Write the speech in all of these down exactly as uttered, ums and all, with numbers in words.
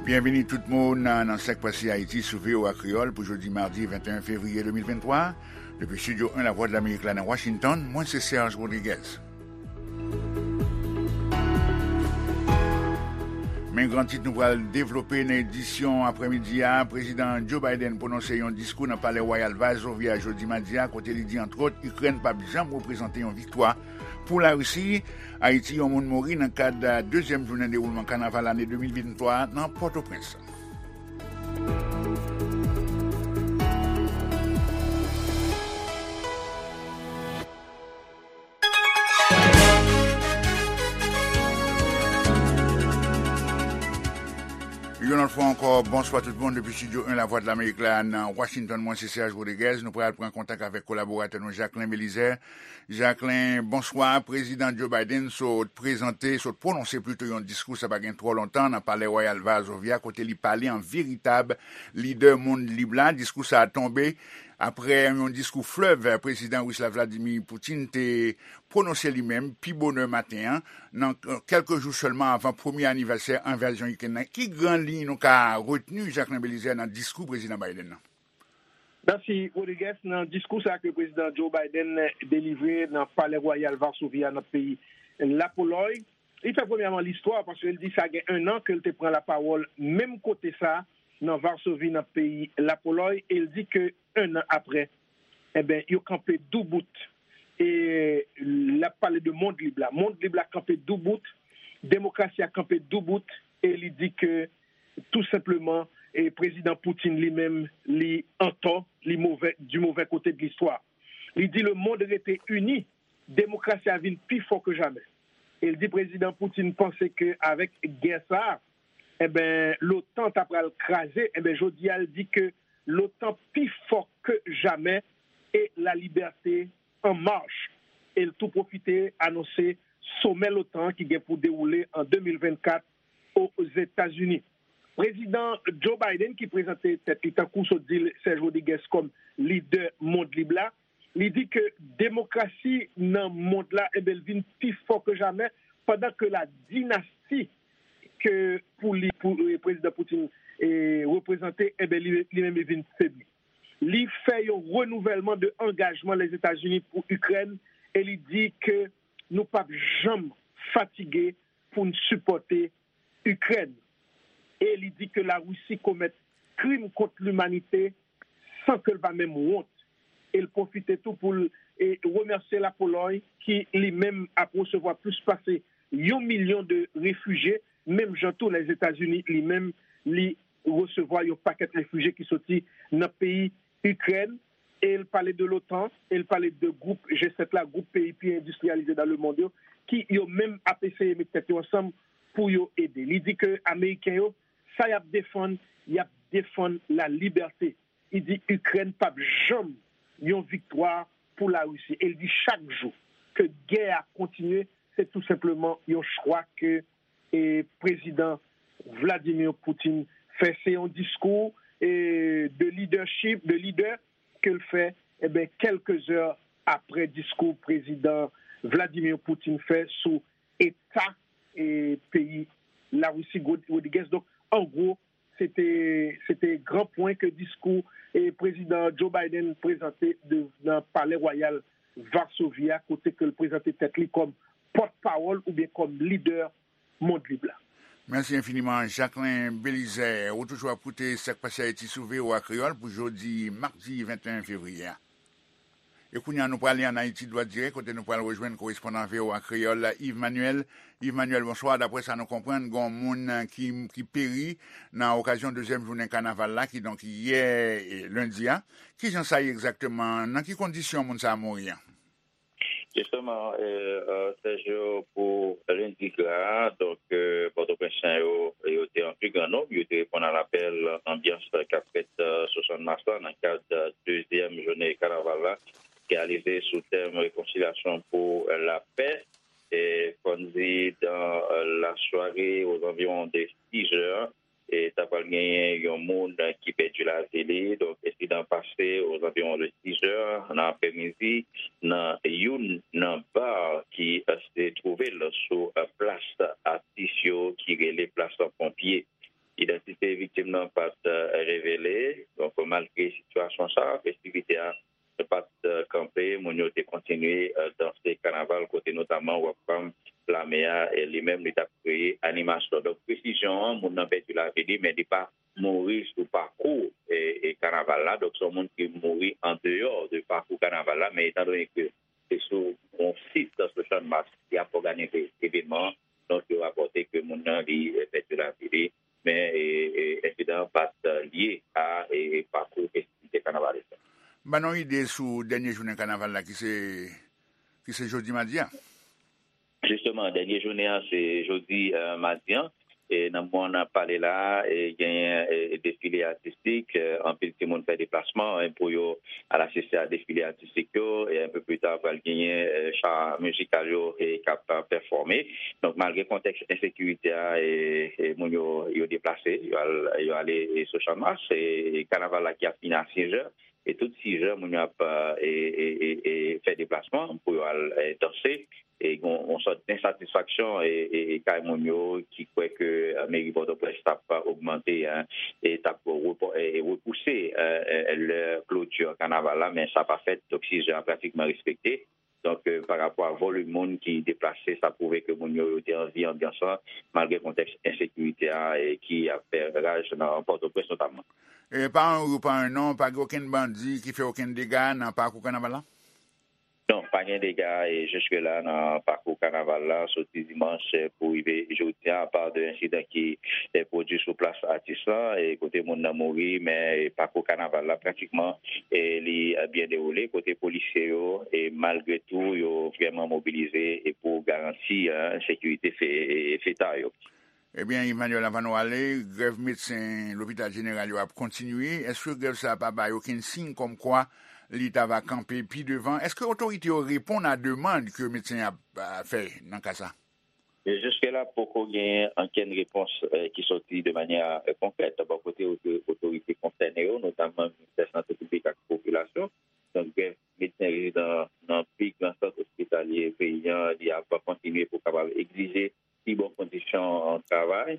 Byenvini tout moun nan, nan Sak Pase Ayiti sou V O A Kreyòl pou jodi madi venteyen fevriye de mil venntwa. Depi Estidyo en Lavwadlamerik la nan Washington, mwen se Serge Rodriguez. Men gran tit nou pral devlope nan edisyon aprèmidi a, Prezidan Joe Biden pwononse yon diskou nan Palè Wayal Varsovie a jodi madi a, kote li di, antwòt, Ikrèn p ap janm reprezante yon viktwa pou Larisi. Ayiti, yon moun mouri nan kad dezyèm jounen dewoulman kanaval ane de mil venntwa nan Pòtoprens. Yon lòt fwa ankò, bonswa tout moun depi Estidyo en Lavwadlamerik la nan Washington. Mwen se Serge Rodriguez. Nou pral pran kontak avèk kolaboratè nou Jacquelin Belizaire. Jacquelin, bonswa. Prezidan Joe Biden sot prezante, sot pwononse plito yon diskou, sa pa gen twò lontan, nan Palè Wayal Varsovie a, kote li pale an veritab lidè mond lib la. Diskou sa a tonbe apre yon diskou flèv Prezidan Ris la Vladimir Putin te pwononse li menm pi bonè maten an, nan kèlke jou sèlman avan premye anivèsè envazyon Ikrèn nan. Ki gran liy nou ka retni, Jacquelin Belizaire, nan diskou Prezidan Biden nan? Mèsi, Rodriguez. Nan diskou sa ke Prezidan Joe Biden delivre nan Palè Wayal Varsovie a, nan peyi Lapolòy, li fè premyèman listwa, paske l di sa gen en an ke l te pran lapawòl menm kote sa, nan Varsovie, nan peyi Lapolòy, e l di ke en an apre, enben, yo kanpe doubout. E l ap pale de mond lib la. Mond lib la kanpe doubout, demokrasi a kanpe doubout, e li di ke, tou senpleman, e Prezidan Putin li menm, li antò, li move, du mauvais côté de l'histoire. Li di lemonn rete ini, demokrasi a vin pi fò ke jamè. E l di Prezidan Putin panse ke avèk gè sa a, enben, l'OTAN ta pral kraze. Enben, jodi a, l di ke l'OTAN pi fò ke jamè e la liberté en marche. E l tou pwofite anonse somè l'OTAN ki gen pou dewoule an de mil vennkat Ozetazini. Prezidan Joe Biden, ki prezante tèt li, tankou sot di l, Serge Rodriguez, kòm lidè mond lib la, li di ke demokrasi nan mond la, enben, l vin pi fò ke jamè, pandan ke la dinasti ke pou li, pou, eh, Prezidan Putin, eh, reprezante, enben, li, li menm li vin febli. Li fè yon renouvèlman de angajman Lèzetazini pou Ikrèn e li di ke nou p ap janm fatige pou n sipòte Ikrèn. E li di ke Larisi komèt krim kont limanite san ke l pa menm wont. E l pwofite tou pou l, e, remèsye Lapolòy ki li menm ap resevwa plis pase yon milyon de refijye, menm jan tou Lèzetazini li menm li resevwa yon pakèt refijye ki soti nan peyi Ikrèn. E l pale de l'OTAN, e l pale de gwoup G sèt la, gwoup peyi pi endistriyalize dans le monde yo, ki yo menm ap eseye met tèt yo ansanm pou yo ede. Li di ke Ameriken yo, sa y ap defann, y ap defann la liberté. Li di Ikrèn p ap janm yon viktwa pou Larisi. E l di chak jou ke gè a kontinye, se tou senpleman yon chwa ke, e, Prezidan Vladimir Putin fè. Se yon diskou, e, de leadership, de lidè ke l fè, enben, kèlke zè apre diskou Prezidan Vladimir Putin fè sou eta, e, peyi Larisi, Rodriguez. Donk, an gwo, se te, se te gran pwen ke diskou, e, Prezidan Joe Biden prezante de, nan Palè Wayal Varsovie a, kote ke l prezante tèt li kòm pòtpawòl oubyen kòm lidè mond lib la. Mèsi enfiniman, Jacquelin Belizaire. Ou toujou ap koute Sak Pase Ayiti sou V O A Kreyòl pou jodi madi venteyen fevriye a. E kounye a, nou prale ann Ayiti, dwat dirèk, kote nou pral rejwenn korespondan V O A Kreyòl, Yves Manuel. Yves Manuel, bonswa. Daprè sa nou konprann, gen yon moun ki, ki peri nan okazyon dezyèm jounen kanaval la, kidonk yè, e, lendi a. Kijan sa ye egzakteman? Nan ki kondisyon moun sa a mouri an? Jisteman, e, e, Sergio, pou lendi gra a, donk, e, Pòtoprensyen yo, yo te an pi gran nonb, yo te reponn a lapèl anbyans k ap fèt, e, sou Channmas la, nan kad, e, dezyèm jounen kanaval la, ki realize sou tèm rekonsilyasyon pou lapè. E, fò n di, dans, e, la soirée, aux environs de six heures, e ta pral genyen yon moun ki pèdi lavi li. Donk, ensidan pase ozanviwon de sis è nan aprèmidi nan youn nan bar ki, e, se twouve l sou, e, plas atis yo ki rele plas ponpye. Idantite viktim nan pa t, eh, revele. Donk, malgre sitiyasyon sa, festivite a pa t, eh, kanpe, moun yo te kontinye, eh, danse kanaval, kote notaman Rockfam Lame a, eh, li menm, li t ap kreye animasyon. Donk, presizyon an, moun nan pèdi lavi li, men li pa mouri sou pakou, eh, eh, kanaval la. Donk, se yon moun ki mouri andeyò de pakou kanaval la, men etan done ke se sou yon sit sou Channmas ki ap òganize evènman an, donk, yo rapòte ke moun nan, li, eh, pèdi lavi li, men, eh, eh, ensidan an pa t, eh, lye a, eh, pakou festivite kanavalis la. Ban nou ide sou dènye jounen kanaval la ki se, ki se jodi madi a. Jisteman, dènye jounen an se jodi, eh, madi an. E nan moman n ap pale la a, e genyen, e, defile atistik, eh, anpil timoun fè deplasman, eh, pou yo al asiste a defile atistik yo, e enpe pli ta pral genyen, eh, cha mizikal yo, e k ap, eh, pèfòme. Donk, malgre kontèks ensekirite a, e, e moun yo, yo deplase, yo al, yo ale, e, sou Channmas, e kanaval la ki ap fini a sis è, e tout sis è, moun yo ap, eh, e, e, e, e fè deplasman pou yo al, eh, danse. E gon yon sòt ensatisfaksyon, e, e, e kay moun yo ki kwè ke, eh, meri Pòtoprens t ap ogmante, hein, e t ap repò-, e, e repouse, eh, eh, lè kloti kanaval la, men sa pa fèt. Donk, sis è a pratikman respekte. Donk, eh, pa rapò a volim moun ki deplase, sa pwouve ke moun yo, yo te anvi anbyans lan, malgre kontèks ensekirite a, e ki ap fè raj nan Pòtoprens notamman. E pa yon ri, pa yon non, pa gen okenn bandi ki fè okenn dega nan pakou kanaval la? Non, pa gen dega, e, jiske la nan pakou kanaval la, soti dimanch, e, pou rive jodi a, apa de ensidan ki, e, pwodui sou plas atis lan, e, kote moun nan mouri, men, e, pakou kanaval la pratikman, e, li, e, byen dewoule, kote polisye yo, e, malgre tou, yo vrèman mobilize, e, pou garanti, e, sekirite fe-, e, feta yo. Ebyen, Emmanuel, anvan nou ale, grèv medsen lopital jeneral yo ap kontinye. Èske grèv sa a pa bay okenn siy kòmkwa li ta va kanpe pi devan? Èske otorite yo reponn a demann ke medsen ap, a, fè nan ka sa? E jiske la, poko genyen okenn repons, eh, ki soti de manyè, eh, konkrèt bò kote oto-, otorite konsène yo, notamman Ministè Sante Piblik ak Popilasyon. Donk, grèv medsen rezidan nan pi gran sant ospitalye peyi an, li ap kontinye pou kapab egzije pi bon kondisyon travay,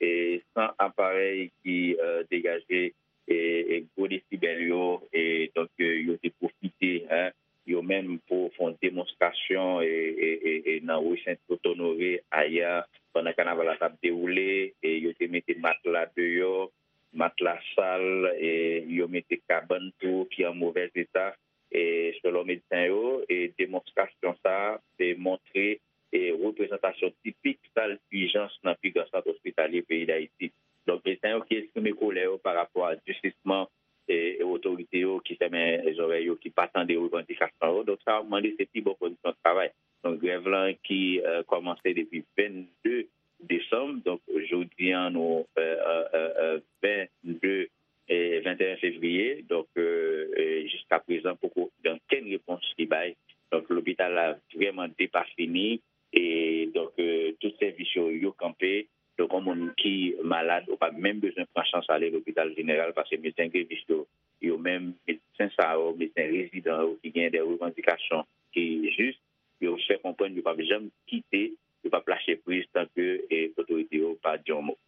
e san aparèy ki, eh, degaje, e, e gwo desibèl yo, e donk, eh, yo te pwofite, hein, yo menm pou fè yon demonstrasyon, e, e, e, e nan ri Sent Onore ayè, pandan kanaval la t ap dewoule, e yo te mete matla deyò, matla sal, e yo mete kabann tou ki an movèz eta, e selon medsen yo, e demonstrasyon sa a te montre, e reprezantasyon tipik sal ijans nan pi gran sant ospitalye peyi Dayiti. Donk, medsen yo ki eksprime kolè yo pa rapò a disisman, e, e otorite yo ki fèmen zòrèy yo, ki pa tande revandikasyon yo. Donk, sa yo mande se pi bon kondisyon travay. Donk, grèv lan ki, eh, kòmanse depi vennde desanm. Donk, jodi an, nou, eh, eh, eh, eh, vennde, eh, venteyen fevriye. Donk, eh, eh, jiska prezan, poko gen okenn repons ki bay. Donk, lopital la vrèman depafini. E donk, eh, tout sèvis yo, yo kanpe. Donk, yon moun ki malad, ou pa menm bezwen pran chans ale lopital jeneral, paske medsen grevis yo, yo menm, medsen sa yo, medsen rezidan yo ki gen de revandikasyon ki jis, yo fè konprann yo p ap janm kite, yo p ap lache priz tanke, e, otorite yo pa di yon mo.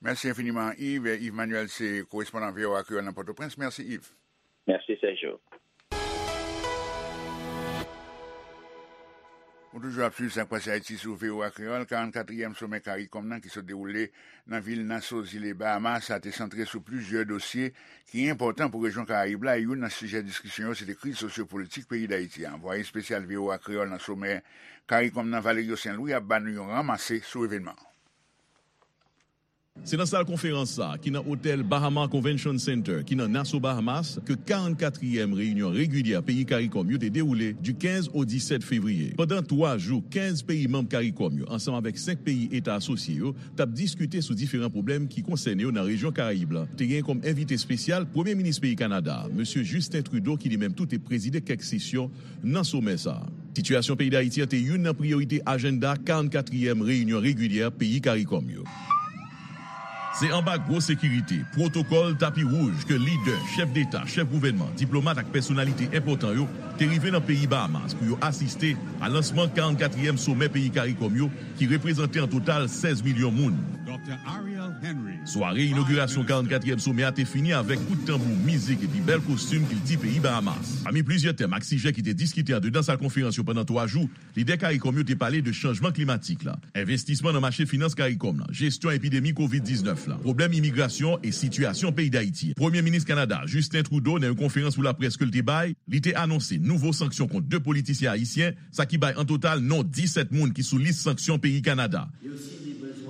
Mèsi enfiniman, Yves. Yves Manuel se korespondan V O A Kreyòl nan Pòtoprens. Mèsi, Yves. Mèsi, Sergio. Ou toujou ap swiv Sa k Pase Ayiti sou V O A Kreyòl. Karannkatriyèm somè CARICOM nan ki sot dewoule nan vil Nassau, zile Bahamas, a te santre sou plizyè dosye ki enpòtan pou rejyon Karayib la, e youn nan sijè diskisyon yo se te kriz sosyopolitik peyi Dayiti a. Anvwaye espesyal V O A Kreyòl nan somè CARICOM nan, Valerio Saint Louis, ap ba nou yon ranmase sou evènman an. Se nan sal konferans sa a, ki nan otèl Bahama Convention Center, ki nan Nassau, Bahamas, ke karannkatriyèm reyinyon regilyè peyi CARICOM yo te dewoule di kenz o disèt fevriye. Pandan twa jou, kenz peyi manm CARICOM yo, ansanm avèk senk peyi eta asosye yo, t ap diskite sou diferan pwoblèm ki konsène yo nan rejyon Karayib la. Te gen kòm envite espesyal Premye Minis peyi Kanada a, Mesye Justin Trudeau, ki li menm tou te prezide kèk sesyon nan somè sa a. Sitiyasyon peyi Dayiti an te youn nan priyorite ajanda karannkatriyèm reyinyon regilyè peyi CARICOM yo. Se anba gwo sekirite, pwotokòl tapi wouj ke lidè, chèf deta, chèf gouvènman, diplomat ak pèsonalite enpòtan yo te rive nan peyi Bahamas pou yo asiste a lansman karannkatriyèm somè peyi CARICOM yo ki reprezante an total sèz milyon moun. Sware inogirasyon karannkatriyèm somè a te fini avèk kout tanbou, mizik epi bèl kostim kilti peyi Bahamas. Pami plizyè tèm ak sijè ki te diskite andedan sal konferans yo pandan twa jou, lidè CARICOM yo te pale de chanjman klimatik la, envestisman nan mache finans CARICOM la, jesyon epidemi kovid diznèf la, pwoblèm imigrasyon e sitiyasyon peyi Dayiti. Premye minis Kanada, Justin Trudeau, nan yon konferans pou laprès ke l te bay, li te anonse nouvo sanksyon kont de politisyen ayisyen, sa ki bay an total non disèt moun ki sou lis sanksyon peyi Kanada.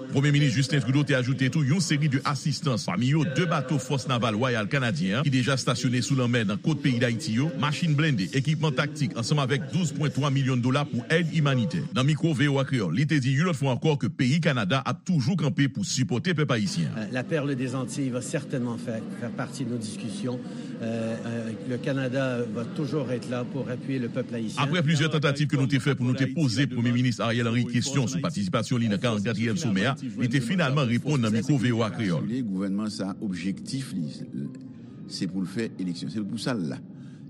Premye minis Justin Trudeau te ajoute tou yon seri de asistans, pami yo de bato Fòs Naval Wayal Kanadyen an ki deja stasyone sou lanmè nan kot peyi Dayiti yo, machin blende, ekipman taktik, ansanm avèk douz pwen twa milyon dola pou èd imanitè. Nan mikwo V O A Kreyòl, li te di yon lòt fwa ankò ke peyi Kanada ap toujou kanpe pou sipòte pèp ayisyen an. Euh, la perle des Antilles va certainement faire, faire partie de nos discussions. Euh, euh, le Canada va toujours être là pour appuyer le peuple haïtien. Apre plizyè tantativ ke nou te fè pou nou te poze Premye Minis Ariel Henry kesyon sou patisipasyon li nan karannkatriyèm somè a, li te finalman reponn nan mikwo V O A Kreyòl. Gouvènman sa, objektif li, se pou l fè eleksyon. Se pou sa l la.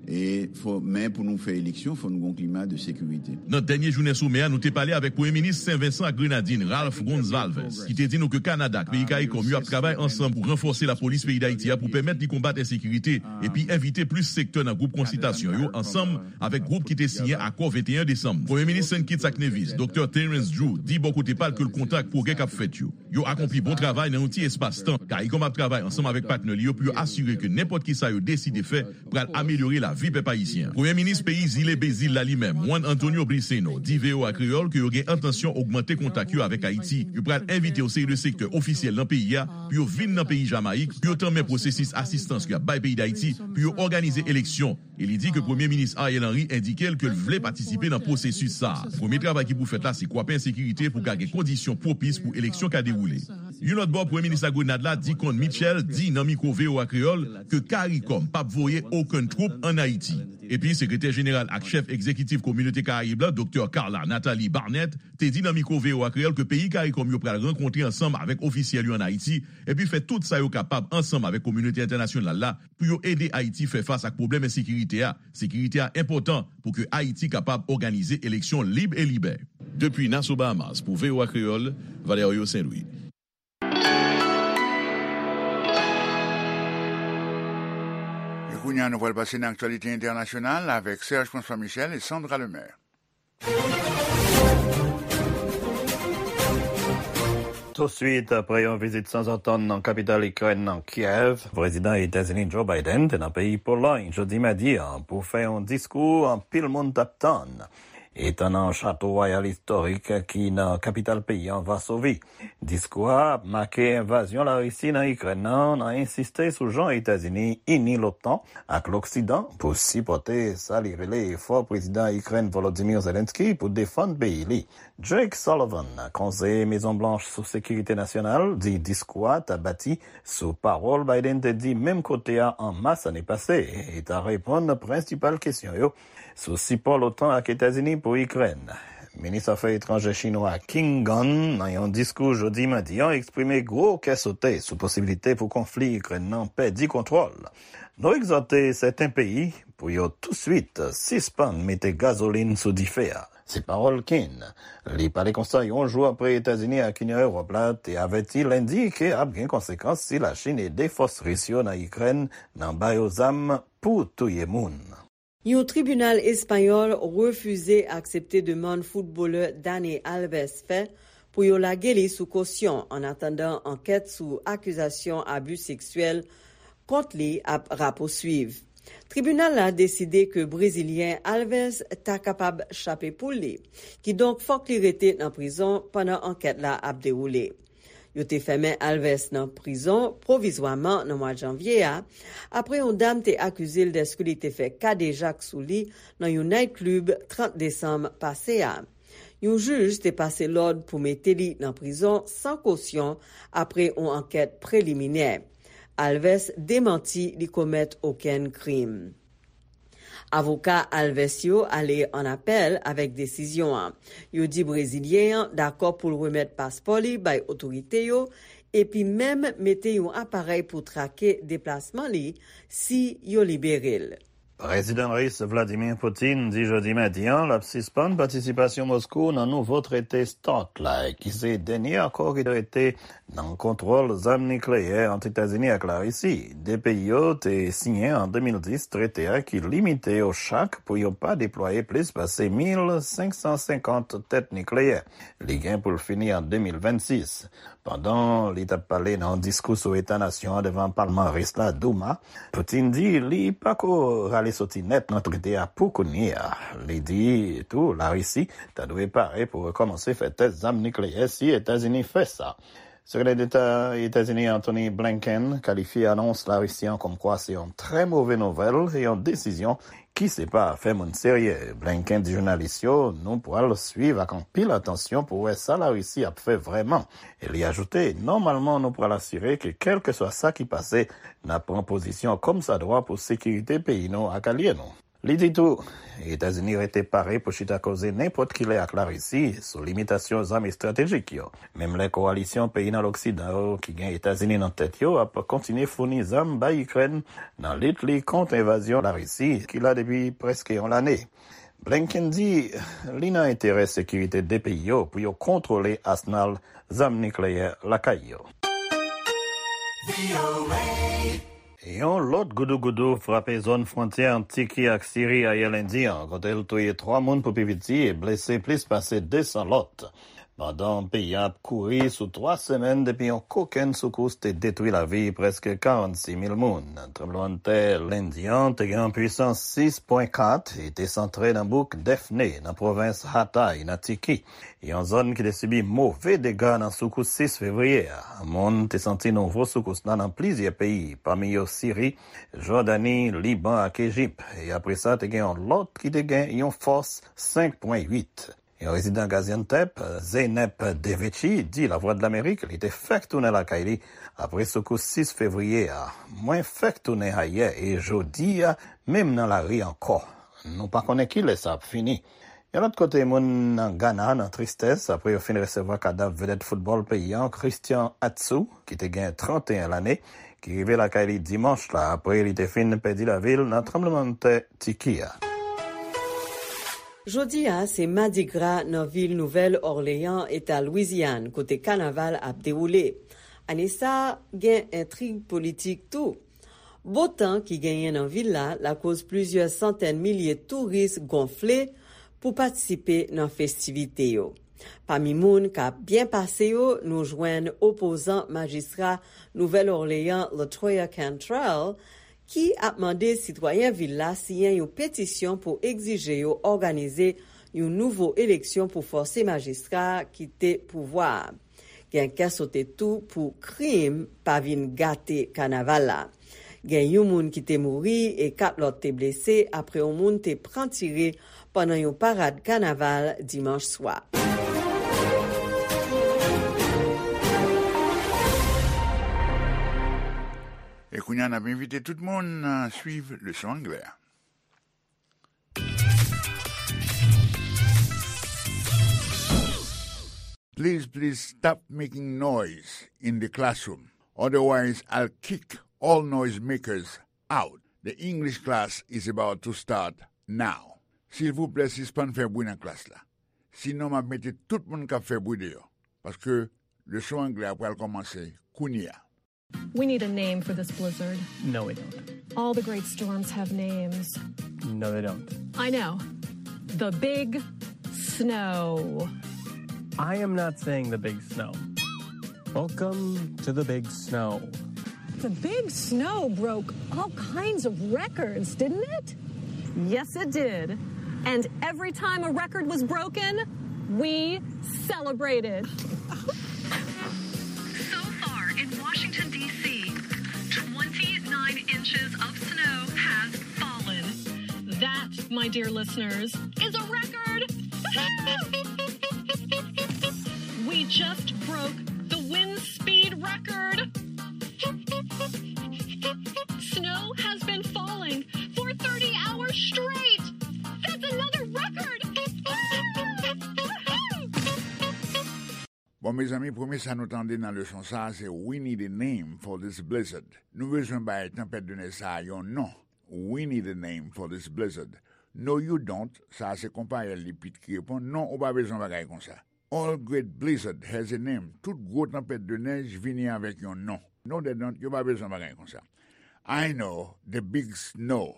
E fò, men pou nou fè eleksyon, fò nou gon klima de sekirite. Nan dènye jounen somè a, nou te pale avèk Premye Minis Sen Vensan ak Grenadin, Ralph Gonsalves, ki te di nou ke Kanada ak peyi CARICOM yo ap travay ansanm pou ranfòse lapolis peyi Dayiti a pou pèmèt li konbat ensekirite epi envite plis sektè nan gwoup konsiltasyon yo ansanm avèk gwoup ki te siyen akò venteyen desanm. Premye Minis Saint Kitts ak Nevis, Doktè Terrence Drew, di bò kote pa l ke l kontan ak pwogrè k ap fèt yo. Yo akonpli bon travay nan yon ti espas tan. CARICOM ap travay ansanm avèk patnè li yo pou yo asire ke nenpòt ki sa yo deside fè pral amelyore lavi pèp ayisyen an. Premye Minis peyi Zile Bezil la li menm, Juan Antonio Briceño, di V O A Kreyòl ke yo gen entansyon ogmante kontak yo avèk Ayiti. Yo pral envite yon seri de sektè ofisyèl nan peyi a pou yo vin nan peyi Jamayik pou yo tanmen pwosesis asistans ke y ap bay peyi Dayiti pou yo òganize eleksyon. E li di ke Premye Minis Ariel Henry endike l ke l vle patisipe nan pwosesis sa a. Premye travay ki pou fèt la se kwape ensekirite pou ka gen kondisyon pwopis pou eleksyon ka dewoule. Yon lòt bò, Premye Minis Lagrenad la, Dickon Mitchell, di nan mikwo V O A Kreyòl ke CARICOM p ap voye okenn twoup ann Ayiti. Epi, Sekretè Jeneral ak Chèf Egzekitif Kominote Karayib la, Doktè Carla Nathalie Barnett, te di nan mikwo V O A Kreyòl ke peyi CARICOM yo pral rankontre ansanm avèk ofisyèl yo ann Ayiti, epi fè tout sa yo kapab ansanm avèk kominote entènasyonal la pou yo ede Ayiti fè fas ak pwoblèm ensekirite a. Sekirite a enpòtan pou ke Ayiti kapab òganize eleksyon lib e libè. Depi Nassau, Bahamas, pou V O A Kreyòl, Valerio Saint-Louis. E kounye a, nou pral pase nan aktyalite entènasyonal avèk Serge François Michel e Sandra Lemaire. Touswit apre yon vizit sanzatann nan kapital Ikrèn nan, Kiev, Prezidan Etazini Joe Biden te nan peyi Polòy jodi madi a pou fè yon diskou anpil moun t ap tann. Etan nan Chato Wayal istorik ki nan kapital peyi an, Vasovi. Diskou a ap make envazyon Larisi nan Ikrèn nan, nan ensiste sou jan Etazini ini l'OTAN ak Loksidan pou sipòte sa li rele efò Prezidan Ikrèn Volodymyr Zelensky pou defann peyi li. Jake Sullivan, konseye Mezon Blanch sou sekirite nasyonal, di diskou a ta bati sou pawòl Biden te di menm kote a an mas ane pase, e ta reponn prensipal kesyon yo sou sipò l'OTAN ak Etazini pou Ikrèn. Minis afè etranjè chinwa Qin Gang, nan yon diskou jodi madi an, eksprime gwo kè sote sou posibilite pou konfli Ikrèn nan pèdi kontwòl. Nou egzòte sèten peyi pou yo touswit sispann mete gazolin sou dife a. Se pawòl Qin. Li pale konsa yon jou apre Etazini ak Inyon Ewòp la te avèti lendi ke ap gen konsekans si Lachin ede fòs ris yo nan Ikrèn nan ba yo zam pou touye moun. Yon tribinal espayòl refize aksepte demann foutbolè Dani Alves fè pou yo lage li sou kosyon, annatandan ankèt sou akizasyon abi seksyèl kont li ap rapouswiv. Tribinal la deside ke Brezilyen Alves ta kapab chape poul li, kidonk fòk li rete nan prizon pandan ankèt la ap dewoule. Yo te fèmen Alves nan prizon pwovizwaman nan mwa janvye a, apre yon dam te akize l dèske li te fè kadejak sou li nan yon naytklib trant desanm pase a. Yon jij te pase lòd pou mete li nan prizon san kosyon apre yon ankèt preliminè. Alves demanti li komèt okenn krim. Avoka Alves yo ale an apèl avèk desizyon an. Yo di Brezilyen an dakò pou l remèt paspò li bay otorite yo epi menm mete yon aparèy pou trake deplasman li si yo libere l. Prezidan ris Vladimir Putin di jodi madi a l ap sispann patisipasyon Moskou nan nouvo trete START la, ki se dènye akò ki te rete nan kontwòl zam nikleyè ant Etazini ak Larisi. De peyi yo te siyen an de mil dis trete a ki limite yo chak pou yo pa deplwaye plis pase mil senk san senkant tèt nikleyè. Li gen pou l fini an de mil vennsis. Pandan li t ap pale nan yon diskou sou eta nasyon an devan palman ris la, Douma, Putin di li pako rale soti nèt nan trete a pou kounye a. Li di tou Larisi ta dwe pare pou rekòmanse fè tès zam nikleyè si Etazini fè sa. Sekretè Deta Etazini Antony Blinken kalifye anons Larisi an kòmkwa se yon trè move nouvèl e yon desizyon ki se pa afè moun serye. Blinken di jounalis yo, nou pral swiv ak anpil atansyon pou wè sa Larisi ap fè vrèman. E li ajoute, nòmalman nou pral asire ke kèlkeswa sa ki pase, n ap pran pozisyon kòmsadwa pou sekirite peyi nou ak alye nou. Li di tou, Etazini rete pare pou chita koze nenpòt ki lè ak Larisi sou limitasyon zam estratejik yo. Menm lè kowalisyon peyi nan Loksidan yo ki gen Etazini nan tèt yo ap kontinye founi zam bay Ikrèn nan lit li kont envazyon Larisi ki la depi prèske yon lane. Blinken di li nan enterè sekirite de peyi yo pou yo kontwole asnal zam nikleyè lakay yo. Yon lòt goudougoudou frape zòn fwontyè ant Tiki ak Siri ayè lendi an, kote l touye twa moun pou pi piti e blese plis pase de san lòt. Pandan peyi a ap kouri sou twa semèn depi yon kokenn soukous te detwi lavi prèske karannsis mil moun, tranblemanntè lendi an te gen yon pwisans sis pwen kat e te santre nan bouk Defne, nan pwovens Hatay, nan Tiki. Yon zòn ki te sibi move dega nan soukous sis fevriye a. Moun te santi nouvo soukous la nan plizyè peyi, pami yo Siri, Jòdani, Liban ak Ejip. E apre sa, te gen yon lòt ki te gen yon fòs senk pwen uit. Yon rezidan Gaziantep, Zeynep Deveci, di Lavwadlamerik li te fèk tounen lakay li apre soukous sis fevriye a. Mwen fèk tounen ayè e jodi a, menm nan lari ankò. Nou pa konnen kilè sa ap fini. Yon lòt kote, moun nan Gana nan tristès apre yo fin resevwa kadav vedèt foutbòl peyi an, Christian Atsu, ki te gen trannteyen lane, ki rive lakay li dimanch la apre li te fin pèdi lavi l nan tranblemanntè Tiki a. Jodi a, se Madigra nan vil Nouvèl Òleyan, eta Lwizyàn, kote kanaval ap dewoule. Ane sa a, gen entrig politik tou. Bon tan ki genyen nan vil la lakoz plizyè santèn milye touris gonfle pou patisipe nan festivite yo. Pami moun k ap byen pase yo, nou jwenn opozan majistra Nouvèl Òleyan, Latoya Cantrell, ki ap mande sitwayen vil la siyen yon petisyon pou egzije yo òganize yon nouvo eleksyon pou fòse majistra a kite pouvwa a. Gen kè sote tou pou krim pa vin gate kanaval la. Gen yon moun ki te mouri e kat lòt te blese apre yon moun te pran tire pandan yon parad kanaval dimanch swa. E kounye a, n ap envite tout moun, uh, swiv leson anglè a. Please, please stop making noise in the classroom. Otherwise, I'll kick all noise makers out. The English class is about to start now. Silvouplè, sispann fè bri nan klas la. Sinon, m ap mete tout moun k ap fè bri deyò. Paske leson anglè a pral kòmanse kounye a. We need a name for this blizzard. No, we don't. All the great storms have names. No, they don't. I know. The Big Snow. I am not saying the big snow. Welcome to the big snow. The big snow broke all kinds of records, didn't it? Yes, it did. And every time a record was broken, we celebrated. So far in Washington, D C, twenty-nine inches of snow has fallen. That, my dear listeners, is a record! We just broke the wind speed record! Snow has been falling for thirty hours straight! That's another record! O mezanmi, premye sa nou tande nan leson sa a, se We need a name for this blizzard. Nou bezwen bay tanpèt de nèj sa a yon non. We need a name for this blizzard. No, you don't. Sa a se konpayèl li Pit ki reponn. Non, ou pa bezwen bagay konsa. All great blizzard has a name. Tout gwo tanpèt de nèj vini avèk yon non. No, they don't. Yo pa bezwen bagay konsa. I know the big snow.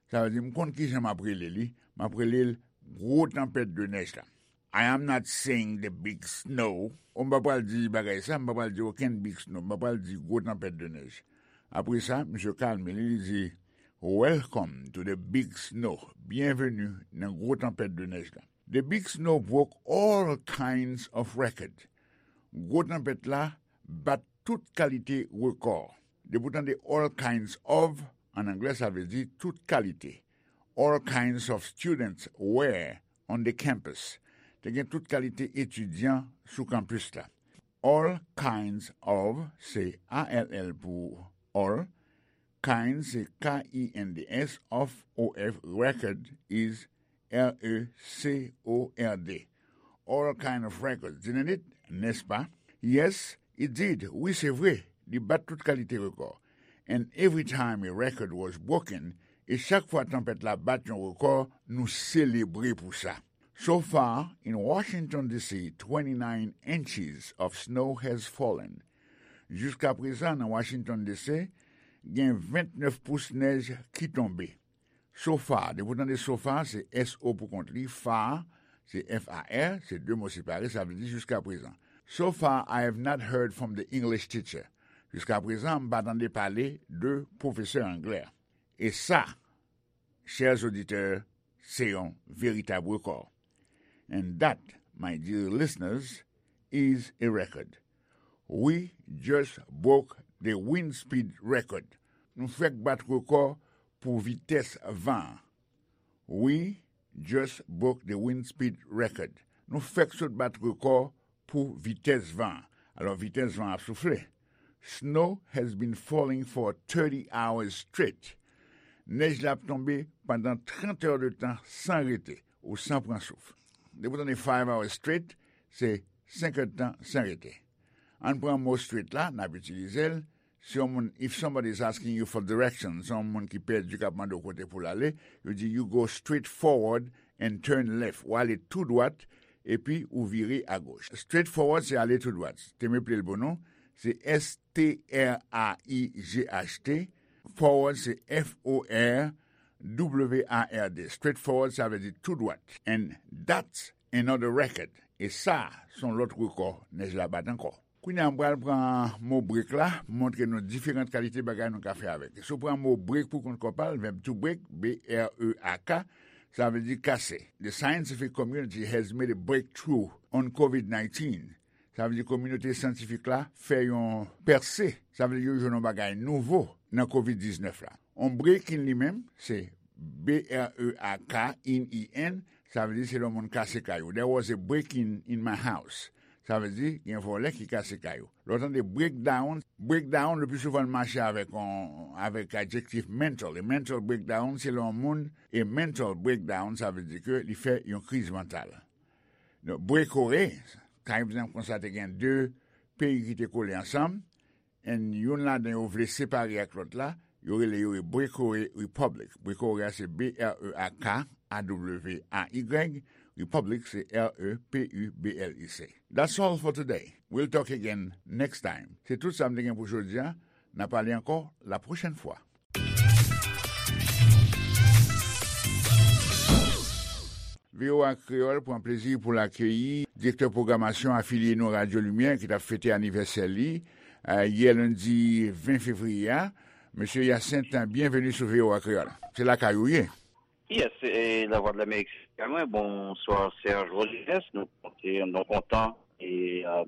Sa vle di, m konn kijan m ap rele li. M ap rele l gwo tanpèt de nèj la. I am not saying the big snow. O, m pa pral di bagay sa, m pa pral di okenn big snow, m pa pral di gwo tanpèt de nèj. Apre sa, misye kalme li, li di, Welcome to the big snow. Byenveni nan gwo tanpèt de nèj la. The big snow broke all kinds of record. Gwo tanpèt la bat tout kalite rekò. Depi w tande all kinds of, an anglè, sa vle di tout kalite. All kinds of students were on the campus. Te gen tout kalite etidyan sou kanpis la. All kinds of, se A L L pou all. Kinds, se K I N D S, of, O F, record is R E C O R D. All kind of records, didn't it? Nèspa? Yes, it did. Wi, se vre. Li bat tout kalite rekò. And every time a record was broken, e chak fwa tanpèt la bat yon rekò, nou selebre pou sa. So far, in Washington D C, twenty-nine inches of snow has fallen. Jiska prezan, nan Washington D C, gen vennèf pous nèj ki tonbe. So far, depi w tande so far, se S O pou kont li, far, se F A R, se de mo separe, sa vle di jiska prezan. So far, I have not heard from the English teacher. Jiska prezan, m pa tande pale de pwofesè anglè. E sa, chers auditeurs, se yon veritab rekò. And that, my dear listeners, is a record. We just broke the wind speed record. Nou fèk bat rekò pou vitès van an. We just broke the wind speed record. Nou fèk sot bat rekò pou vitès van an. Alò, vitès van an ap soufle. Snow has been falling for thirty hours straight. Nèj la ap tonbe pandan trant è de tan san rete ou san pran souf. Depi w tande five hours straight, se senk è de tan san rete. Ann pran mo straight la, n ap itilize l. Si yon moun, if somebody is asking you for directions, si yon moun ki pèdi k ap mande w kote pou l ale, yo di, you go straight forward and turn left. Ou ale tou dwat, epi ou vire agoch. Straight forward, se ale tou dwat. Te m eple l pou nou, se S T R A I G H T. Forward, se F O R W A R D. Straight forward, sa vle di tou dwat. And that's another record. E sa, se yon lòt rekò nèj la bat ankò. Kounye a, m pral pran mo break la, montre nou diferan kalite bagay nou ka fè avèk. Si w pran mo break pou kont kò pa l, verb to break, B R E A K, sa vle di kase. The scientific community has made a breakthrough on covid nineteen. Sa vle di kominote syantifik la fè yon pèse. Sa vle di yo jwenn yon bagay nouvo nan covid diznèf la. On break-in li menm, se B R E A K in, I N, sa vle di se lè yon moun kase kay ou. There was a break-in in my house. Sa vle di gen vòlè ki kase kay ou. Lè w tande breakdown, breakdown le pli souvan l mache avèk yon, avèk adjektif mental. E mental breakdown, se lè yon moun, e mental breakdown, sa vle di ke li fè yon kriz mantal. Donk, breakaway, pa egzanp, konsa te gen de peyi ki te kole ansanm, and youn ladan yo vle separe ak lòt la, yo rele yo a breakaway republic. Breakaway a se B R E A K A W A Y, republic se R E P U B L I C. That's all for today. We'll talk again next time. Se tout sa m te gen pou jodi a. N a pale ankò la pwochèn fwa. V O A Kreyòl pran plezi pou l akeyi direktè pwogramasyon afilye nou Radyo Limyè ki t ap fete anivèsè li, eh, yè lendi ven fevriye a. Mesye Hyacinthe, byenveni sou V O A Kreyòl. Se lakay ou ye. Yes, e Lavwadlamerik se lakay mwen. Bonswa, Serge Rodriguez. Nou konte, nou kontan e, eh,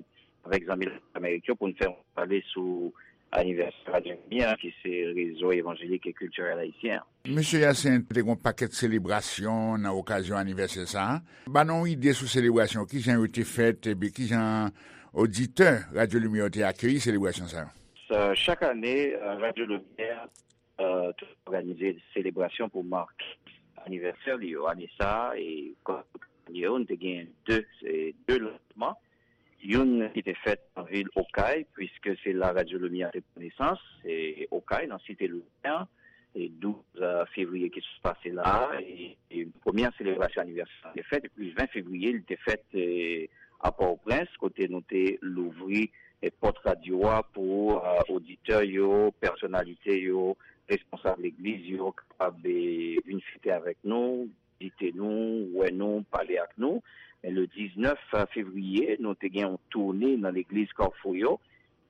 avèk zanmi Lavwadlamerik yo pou n fè yon pale sou anivèsè Radyo Limyè an, ki se rezo evanjelik e kiltirèl ayisyen an. Mesye Hyacinthe, te gen yon pakèt selebrasyon nan okazyon anivèsè sa a. Ban nou yon ide sou selebrasyon, kijan yo te fèt, epi kijan oditè Radyo Limyè yo te akeyi selebrasyon sa yo? Sa, chak ane, eh, Radyo Limyè, eh, toujou òganize selebrasyon pou make anivèsè li yo. Ane sa a, e kòm ane yo, nou te gen de, se de lansman. Youn ki te fèt nan vil Okay, puiske se la Radyo Limyè te pran nesans, se Okay, nan Site Limyè, e douz fevriye ki sot pase la a, e, e premyè selebrasyon anivèsè a te fèt, epi ven fevriye, li te fèt, e, a Pòtoprens, kote nou te louvri, e, pòt radyo a pou, e, oditè yo, pèsonalite yo, responsab legliz yo, kapab, e, vin fete avèk nou, vizite nou, wè nou, pale ak nou. Men le diznèf fevriye, nou te gen yon toune nan legliz Kafou yo,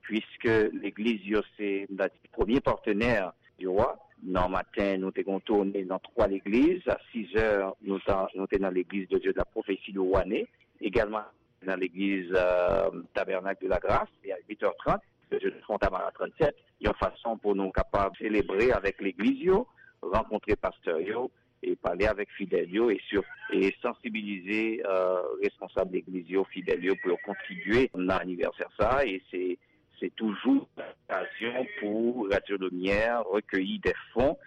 puiske legliz yo se, m ta di, premye patnè yo a. Nan maten, nou te gen yon toune nan twa legliz. A sizè, nou ta, nou te nan legliz de Dieu de la Prophétie de Wane. Egalman, nan legliz, e, Tabernacle de la Grâce, e a uit è trant, legliz Fontamara trannsèt, yon fason pou nou kapab selebre avèk legliz yo, rankontre pastè yo, e pale avèk fidèl yo, e, sir, e sansibilize, e, responsab legliz yo, fidèl yo, pou yo kontribye nan anivèsè sa a, e se, se toujou okazyon pou Radyo Limyè rekeyi de fon,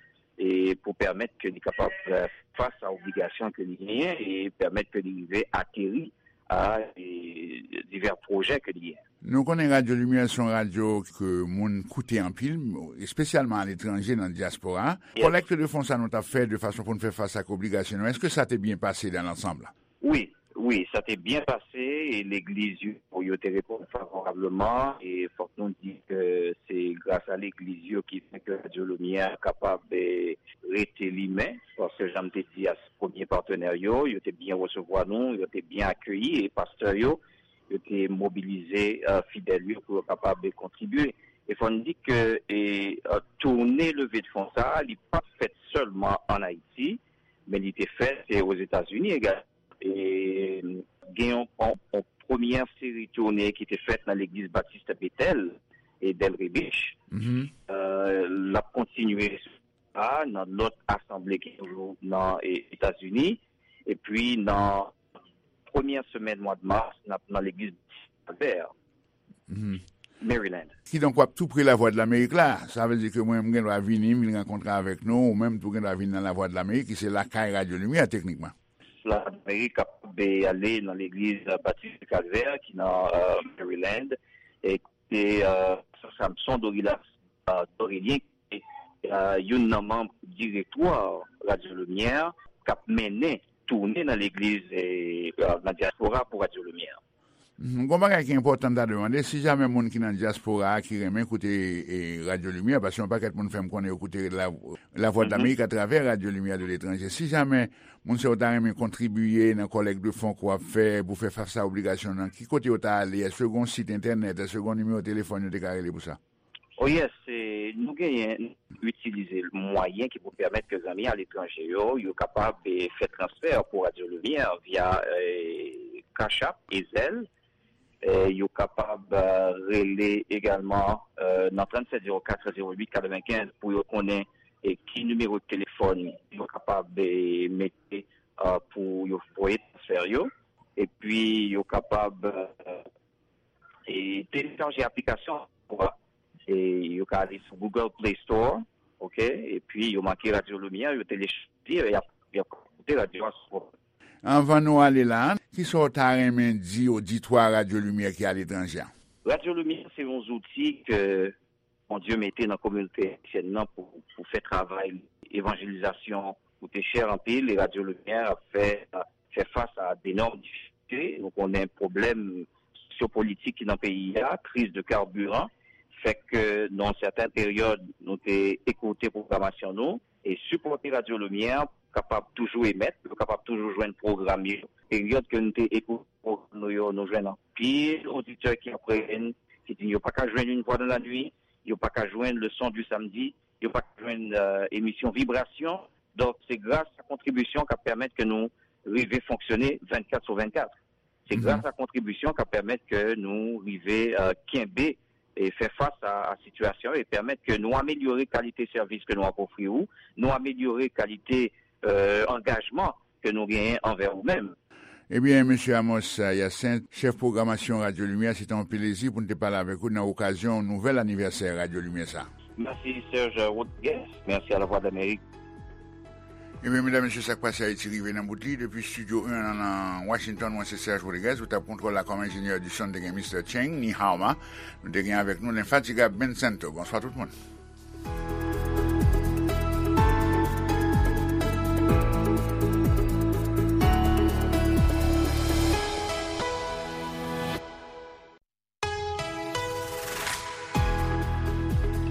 e pou pèmèt ke li kapab, e, fè fas a obligasyon ke li genyen, e pèmèt ke li rive ateri a, e, divè pwojè ke li genyen. Nou konnen Radyo Limyè se yon radyo ke moun koute anpil, espesyalman aletranje, nan dyaspora. Yes. Kolèkt de fon sa nou t ap fè de fason pou n fè fas ak obligasyon nou, èske sa te byen pase dans l'ensemble? Wi, wi, sa te byen pase, e legliz yo, yo te reponn favorableman, e fòk nou di ke se gras a legliz yo ki fè ke Radyo Limyè kapab, e, rete limen, paske jan m te di a, se premye patnè yo, yo te byen resevwa nou, yo te byen akeyi, e pastè yo, yo te mobilize, e, fidèl yo pou yo kapab kontribye. E fò n di ke, e, e, toune leve de fon sa a, li pa t fèt sèlman ann Ayiti, men li te fèt, e, Ozetazini egalman. E gen yon, yon, yon premyè seri toune ki te fèt nan legliz Batis Betèl e Delray Beach. Mhm. E, l ap kontinye a, nan lòt asanble ki toujou nan, e, Etazini. Epi nan premyè semèn mwa de mas, n ap nan legliz Kalvè, Mhm. Maryland. Kidonk, w ap tou pre Lavwadlamerik la. Sa vle di ke mwen, m gen dwa vini, m vin rankontre avèk nou, ou menm tou gen dwa vin nan Lavwadlamerik, ki se lakay Radyo Limyè, teknikman. Lavwadlamerik kapab ale nan legliz Batis Kalvè, ki nan, e, Maryland, e kote, e, Samson Dorilas, e, Dorélien, e, youn nan manm direktwa Radyo Limyè k ap mennen toune nan legliz, e, e, nan dyaspora pou Radyo Limyè. Mhm. Gon bagay ki enpòtan m ta dwe mande, si jamè moun ki nan dyaspora a ki renmen koute, e, Radyo Limyè, paske yon pakèt moun fè m konnen yo koute La, La Voix de l'Amérique atravè Radyo Limyè de Letranje, si jamè moun sa yo ta renmen kontribiye nan kolèkt de fon ke w ap fè pou fè fas a obligasyon nan, ki kote yo ta ale? Èske gon sit entènèt? Èske gon nimewo telefòn yo te ka rele pou sa? Oh yes, e, nou genyen, nou itilize mwayen ki pou pèmèt ke zanmi aletranje yo, yo kapab, e, fè transfè pou Radyo Limyè via, e, Cash App e Zelle. E, yo kapab, e, rele egalman, e, nan trannsenk zewo kat zewo uit katrevenkenz pou yo konnen, e, ki nimewo telefòn yo kapab, e, mete, e, pou yo voye transfè yo. Epi yo kapab, e, e, telechaje aplikasyon pou, e, yo ka ale sou Google Play Store, oke? Epi yo make Radyo Limyè, yo telechaje, y ap, y ap koute radyo a sou. Anvan nou ale la, kisa w ta renmen di oditwa Radyo Limyè ki aletranje a? Radyo Limyè se yon zouti ke Bondye mete nan kominote ayisyèn nan pou, pou fè travay evanjelizasyon koute chè anpil, e Radyo Limyè ap fè, fè fas a denòm difikilte. Nou konnen pwoblèm sosyopolitik ki nan peyi a, kriz de carburant, fè ke nan yon sèten peryòd, nou te ekoute pwogramasyon nou e sipòte Radyo Limyè pou kapab toujou emèt, pou yo kapab toujou jwenn pwogram yo. Peryòd ke nou te ekoute pwogram nou yo, nou jwenn anpil oditè ki ap rele n, ki di yo pa ka jwenn Une Voix dans la Nuit, yo pa ka jwenn Le Son du Samedi, yo pa ka jwenn, e, emisyon Vibrasyon. Donk, se gras a kontribisyon k ap pèmèt ke nou rive fonksyone vennkat sou vennkat. Se gras a kontribisyon k ap pèmèt ke nou rive, e, kenbe e fè fas a, a sitiyasyon e pèmèt ke nou amelyore kalite sèvis ke nou ap ofri ou, nou amelyore kalite, e, angajman ke nou genyen anvè ou menm. Ebyen, mesye Amos Hyacinthe, chèf pwogramasyon Radyo Limyè, se te yon plezi pou n te pale avèk ou nan okazyon nouvèl anivèsè Radyo Limyè sa. Mèsi, Serge Rodriguez. Mèsi a Lavwadlamerik. Ebyen, medam, mesye, sa k pase Ayiti rive nan bout li. Depi Studio un nan, nan Washington, mwen se Serge Rodriguez. Ou t ap kontwòl la kòm enjenyè di son, te gen Mister Cheng, Ni Hao Ma. Nou te gen avèk nou lenfatigab Ben Santo. Bonswa tout moun.